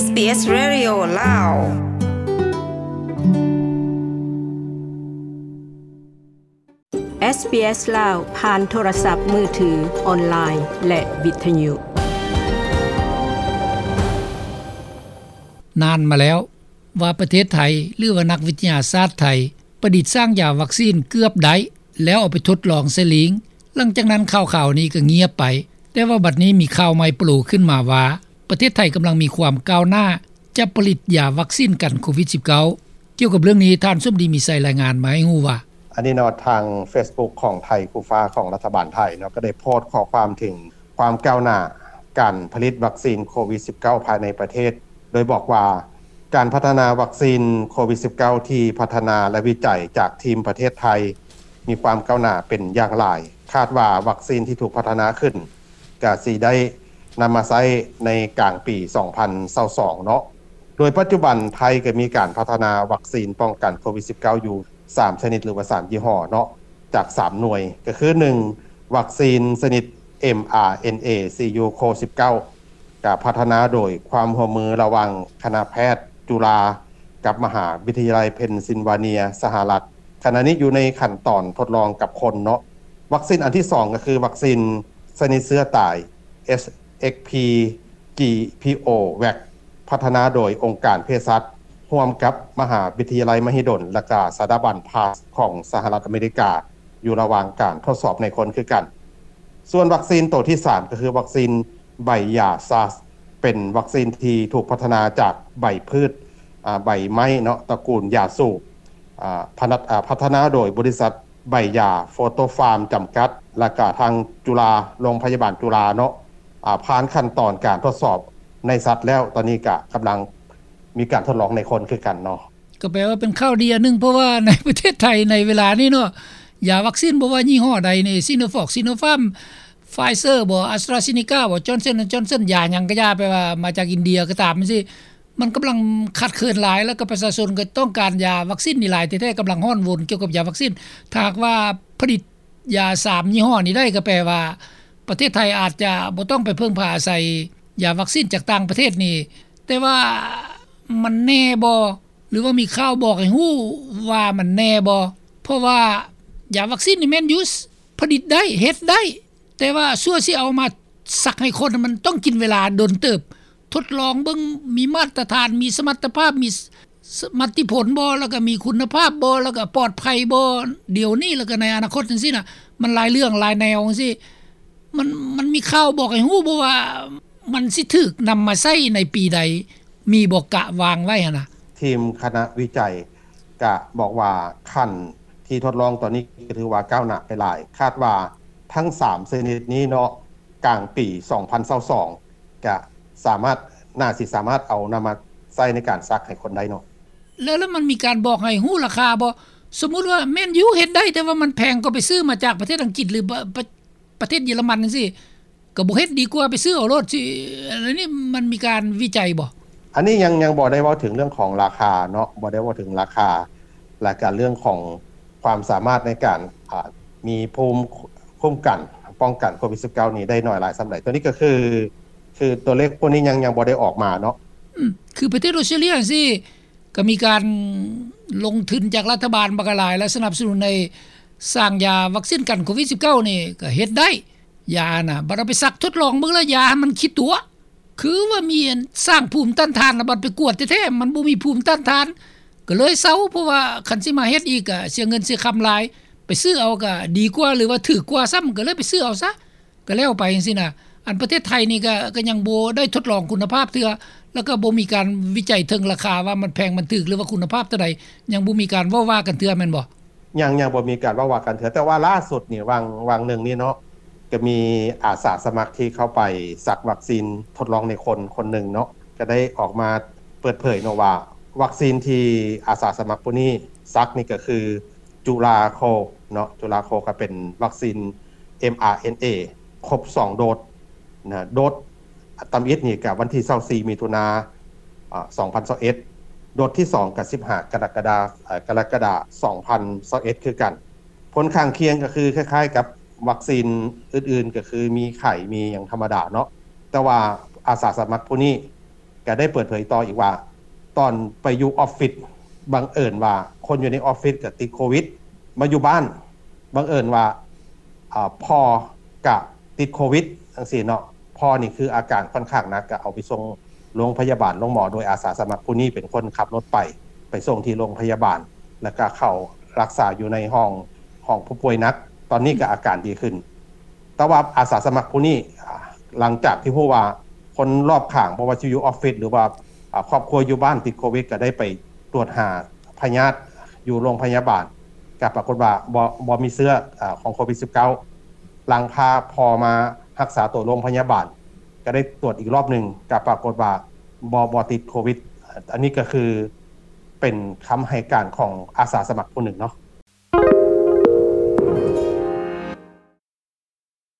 SBS Radio ລາວ. ເອສບີເອສ ລາວ ຜ່ານໂທລະສັບມືຖື, ອອນລາຍ ແລະ ວິທະຍຸ. ນານມາແລ້ວ ວ່າປະເທດໄທ ຫຼືວ່ານັກວິທະຍາສາດໄທ ປະດິດສ້າງຢາວັກຊີນເກືອບໄດ້ ແລ້ວເອົາໄປທົດລອງໃສ່ລີງ. ຫຼັງຈາກນັ້ນຂ່າວຄາວນີ້ກໍງຽບໄປ, ແຕ່ວ່າບັດນີ້ມີຂ່າວໃໝ່ໂປຣຂຶ້ນມາວ່າ ປະເທດໄທກຳລັງມີຄວາມກ້າວໜ້າ ຈະຜະລິດຢາວັກຊີນກັນໂຄວິດສິບເກົ້າ. ກ່ຽວກັບເລື່ອງນີ້ ທ່ານສົມດີ ມີໄຊ ລາຍງານມາໃຫ້ຮູ້ວ່າ. ອັນນີ້ເນາະ ທາງເຟສບຸກຂອງໄທຄູ່ຟ້າຂອງລັດຖະບານໄທເນາະ ກໍໄດ້ໂພສຂໍ້ຄວາມເຖິງຄວາມກ້າວໜ້າການຜະລິດວັກຊີນໂຄວິດສິບເກົ້າພາຍໃນປະເທດ ໂດຍບອກວ່າ ການພັດທະນາວັກຊີນໂຄວິດສິບເກົ້າທີ່ພັດທະນາ ແລະ ວິໄຈຈາກທີມປະເທດໄທ ມີຄວາມກ້າວໜ້າເປັນຢ່າງຫຼາຍ. ຄາດວ່າວັກຊີນທີ່ຖືກພັດທະນາຂຶ້ນ ກະຊິໄດ້ນຳມາໃຊ້ໃນກາງປີສອງພັນຊາວສອງເນາະ. ໂດຍປັດຈຸບັນໄທກໍມີການພັດທະນາວັກຊີນປ້ອງກັນໂຄວິດສິບເກົ້າຢູ່ສາມຊະນິດ ຫຼືວ່າສາມຍີ່ຫໍ້ເນາະ ຈາກສາມໜ່ວຍ ກໍຄື ໜຶ່ງ ວັກຊີນຊະນິດ ເອັມອາເອັນເອ ຊີຢູໂຄສິບເກົ້າ ກະພັດທະນາໂດຍຄວາມຮ່ວມມືລະຫວ່າງຄະນະແພດຈຸລາ ກັບມະຫາວິທະຍາໄລເພນຊິນວາເນຍ ສະຫະລັດ. ຂະນະນີ້ຢູ່ໃນຂັ້ນຕອນທົດລອງກັບຄົນເນາະ. ວັກຊີນອັນທີສອງກໍຄືວັກຊີນຊະນິດເຊື້ອຕາຍ ເອັສເອັກພີ ຈີພີໂອ ແວັກ ພັດທະນາໂດຍອົງການເພສັດ ຮ່ວມກັບມະຫາວິທະຍາໄລມະຫິດົນ ແລະ ກະສະຖາບັນພາສຂອງສະຫະລັດອາເມລິກາ ຢູ່ລະຫວ່າງການທົດສອບໃນຄົນຄືກັນ. ສ່ວນວັກຊີນໂຕທີສາມ ກໍຄືວັກຊີນໃບຢາຊາສ ເປັນວັກຊີນທີ່ຖືກພັດທະນາຈາກໃບພືດ ອາ ໃບໄມ້ເນາະ ຕະກູນຢາສູບ ອາ ພັດທະນາໂດຍບໍລິສັດໃບຢາໂຟໂຕຟາມຈຳກັດ ແລະ ກະທາງຈຸລາ ໂລງພະຍາບານຈຸລາເນາະ ອາ ຜ່ານຂັ້ນຕອນການທົດສອບໃນສັດແລ້ວ ຕອນນີ້ກະກຳລັງມີການທົດລອງໃນຄົນຄືກັນເນາະ. ກໍແປວ່າເປັນຂ່າວດີອັນໜຶ່ງ ເພາະວ່າໃນປະເທດໄທໃນເວລານີ້ເນາະ ຢາວັກຊີນບໍ່ວ່າຍີ່ຫໍ້ໃດນີ້ ຊີໂນຟອກ ຊີໂນຟາມ ໄຟເຊີບໍ ອາສຕຣາເຊນີກາບໍ ຈອນສັນ ແອນ ຈອນສັນ ຢາຫຍັງກໍຢ່າ ແປວ່າມາຈາກອິນເດຍກໍຕາມຈັ່ງຊີ້ ມັນກຳລັງຂາດເຂີນຫຼາຍ ແລ້ວກໍປະຊາຊົນກໍຕ້ອງການຢາວັກຊີນນີ້ຫຼາຍແທ້ໆ ກຳລັງຮ້ອນວົນກ່ຽວກັບຢາວັກຊີນ. ຖ້າຫາກວ່າຜະລິດຢາສາມຍີ່ຫໍ້ນີ້ໄດ້ ກໍແປວ່າປະເທດໄທອາດຈະບໍ່ຕ້ອງໄປເພິ່ງພາອາໄສຢາວັກຊີນຈາກຕ່າງປະເທດນີ້ ແຕ່ວ່າມັນແນ່ບໍ່? ຫຼືວ່າມີຂ່າວບອກໃຫ້ຮູ້ວ່າມັນແນ່ບໍ່? ເພາະວ່າຢາວັກຊີນນີ້ແມ່ນຢູ່ ຜະລິດໄດ້ ເຮັດໄດ້ ແຕ່ວ່າຊົ່ວຊິເອົາມາສັກໃຫ້ຄົນ ມັນຕ້ອງກິນເວລາດົນເຕີບ ທົດລອງເບິ່ງ ມີມາດຕະຖານ ມີສະມັດຕະພາບ ມີ ສ- ສ- ສ- ມັດຕິຜົນບໍ່ ແລ້ວກໍມີຄຸນນະພາບບໍ່ ແລ້ວກໍປອດໄພບໍ່ ດຽວນີ້ ແລ້ວກໍໃນອະນາຄົດຈັ່ງຊີ້ນະ ມັນຫຼາຍເລື່ອງຫຼາຍແນວຈັ່ງຊີ້ ມັນ ມັນມີຂ່າວບອກໃຫ້ຮູ້ບໍ່ວ່າ ມັນຊິຖືກນຳມາໃຊ້ໃນປີໃດ? ມີບໍ່ກະວາງໄວ້ຫັ້ນນະ? ທີມຄະນະວິໄຈກະບອກວ່າ ຂັ້ນທີ່ທົດລອງຕອນນີ້ກໍຖືວ່າກ້າວໜ້າໄປຫຼາຍ ຄາດວ່າທັງສາມຊະນິດນີ້ເນາະ ກາງປີສອງພັນຊາວສອງ ກະສາມາດ ໜ້າຊິສາມາດເອົານຳມາໃຊ້ໃນການສັກໃຫ້ຄົນໄດ້ເນາະ. ແລ້ວ ແລ້ວມັນມີການບອກໃຫ້ຮູ້ລາຄາບໍ່? ສົມມຸດວ່າແມ່ນຢູ່ເຮັດໄດ້ ແຕ່ວ່າມັນແພງ ກໍໄປຊື້ມາຈາກປະເທດອັງກິດ ຫຼື ປະ- ປະ- ປະເທດເຢຍລະມັນຈັ່ງຊີ້ ກໍບໍ່ເຮັດ ດີກວ່າໄປຊື້ເອົາໂລດ ຊິ ອັນນີ້ມັນມີການວິໄຈບໍ່? ອັນນີ້ຍັງ ຍັງບໍ່ໄດ້ເວົ້າເຖິງເລື່ອງຂອງລາຄາເນາະ ບໍ່ໄດ້ເວົ້າເຖິງລາຄາ ແລະກະເລື່ອງຂອງຄວາມສາມາດໃນການ ອາ ມີພູມຄຸ້ມກັນປ້ອງກັນໂຄວິດສິບເກົ້ານີ້ໄດ້ໜ້ອຍຫຼາຍສ່ຳໃດ ໂຕນີ້ກໍຄື ຄືຕົວເລກພວກນີ້ຍັງ ຍັງບໍ່ໄດ້ອອກມາເນາະ. ອືມ ຄືປະເທດອອສເຕຣເລຍຈັ່ງຊີ້ ກໍມີການລົງທຶນຈາກລັດຖະບານບັກຫຼາຍ ແລະ ສະໜັບສະໜູນໃຫ້ສ້າງຢາວັກຊີນກັນໂຄວິດສິບເກົ້ານີ້ ກໍເຮັດໄດ້ ຢານະ ບັດເອົາໄປສັກທົດລອງເບິ່ງແລ້ວ ຢາມັນຂີ້ຕົວະ ຄືວ່າມີອັນສ້າງພູມຕ້ານທານ ແລ້ວບັດໄປກວດແທ້ໆ ມັນບໍ່ມີພູມຕ້ານທານ ກໍເລີຍເຊົາ ເພາະວ່າຄັນຊິມາເຮັດອີກ ກໍເສຍເງິນເສຍຄຳຫຼາຍ ໄປຊື້ເອົາກໍດີກວ່າ ຫຼືວ່າຖືກກວ່າຊ້ຳ ກໍເລີຍໄປຊື້ເອົາຊະ ກໍແລ້ວໄປຈັ່ງຊີ້ນະ. ອັນປະເທດໄທນີ້ກໍ ກໍຍັງບໍ່ໄດ້ທົດລອງຄຸນນະພາບເທື່ອ ແລ້ວກໍບໍ່ມີການວິໄຈເຖິງລາຄາວ່າມັນແພງມັນຖືກ ຫຼືວ່າຄຸນນະພາບເທົ່າໃດ ຍັງບໍ່ມີການເວົ້າວ່າກັນເທື່ອແມ່ນບໍ່? ຍັງ ຍັງບໍ່ມີການເວົ້າວ່າກັນເທື່ອ ແຕ່ວ່າລ່າສຸດນີ້ ຫວ່າງ ຫວ່າງໜຶ່ງນີ້ເນາະ ກໍມີອາສາສະໝັກທີ່ເຂົ້າໄປສັກວັກຊີນທົດລອງໃນຄົນ ຄົນໜຶ່ງເນາະ ກໍໄດ້ອອກມາເປີດເຜີຍເນາະວ່າ ວັກຊີນທີ່ອາສາສະໝັກຜູ້ນີ້ສັກນີ້ກໍຄື ຈຸລາໂຄເນາະ ຈຸລາໂຄກໍເປັນວັກຊີນ ເອັມອາເອັນເອ ຄົບສອງໂດດນະ ໂດດ ຕຳອິດນີ້ກະວັນທີຊາວສີ່ ມິຖຸນາ ອາ ສອງພັນຊາວເອັດ ໂດດທີສອງກະສິບຫ້າ ກໍລະກະດາ ເອີ ກໍລະກະດາ ສອງພັນຊາວເອັດ ຄືກັນ. ຜົນຂ້າງຄຽງກໍຄືຄ້າຍໆກັບວັກຊີນອື່ນໆ ກໍຄືມີໄຂ້ ມີຫຍັງທຳມະດາເນາະ ແຕ່ວ່າອາສາສະໝັກຜູ້ນີ້ ກໍໄດ້ເປີດເຜີຍຕໍ່ອີກວ່າ ຕອນໄປຢູ່ອອຟຟິດ ບັງເອີນວ່າຄົນຢູ່ໃນອອຟຟິດກໍຕິດໂຄວິດ ມາຢູ່ບ້ານ ບັງເອີນວ່າ ອ່າ ພໍ່ກະຕິດໂຄວິດຈັ່ງຊີ້ເນາະ. ພໍ່ນີ້ຄືອາການຄ່ອນຂ້າງໜັກ ກະເອົາໄປສົ່ງໂລງພະຍາບານໂລງໝໍ ໂດຍອາສາສະໝັກຜູ້ນີ້ເປັນຄົນຂັບລົດໄປ ໄປສົ່ງທີ່ໂລງພະຍາບານ ແລ້ວກະເຂົ້າຮັກສາຢູ່ໃນຫ້ອງ ຫ້ອງຜູ້ປ່ວຍໜັກ. ຕອນນີ້ກະອາການດີຂຶ້ນ. ແຕ່ວ່າອາສາສະໝັກຜູ້ນີ້ ອ່າ ຫຼັງຈາກທີ່ຮູ້ວ່າຄົນລອບຂ້າງ ບໍ່ວ່າຊິຢູ່ອອຟຟິດ ຫຼືວ່າ ອ່າ ຄອບຄົວຢູ່ບ້ານຕິດໂຄວິດ ກະໄດ້ໄປຕວດຫາພະຍາດຢູ່ໂລງພະຍາບານ ກະປາກົດວ່າບໍ່ ບໍ່ມີເຊື້ອ ອາ ຂອງໂຄວິດສິບເກົ້າ. ຫຼັງພາພໍ່ມາຮັກສາໂຕໂລງພະຍາບານ ກະໄດ້ຕວດອີກລອບໜຶ່ງ ກະປາກົດວ່າບໍ່ ບໍ່ຕິດໂຄວິດ. ອັນນີ້ກະຄືເປັນຄຳໃຫ້ການຂອງອາສາສະໝັກຜູ້ໜຶ່ງເນາະ.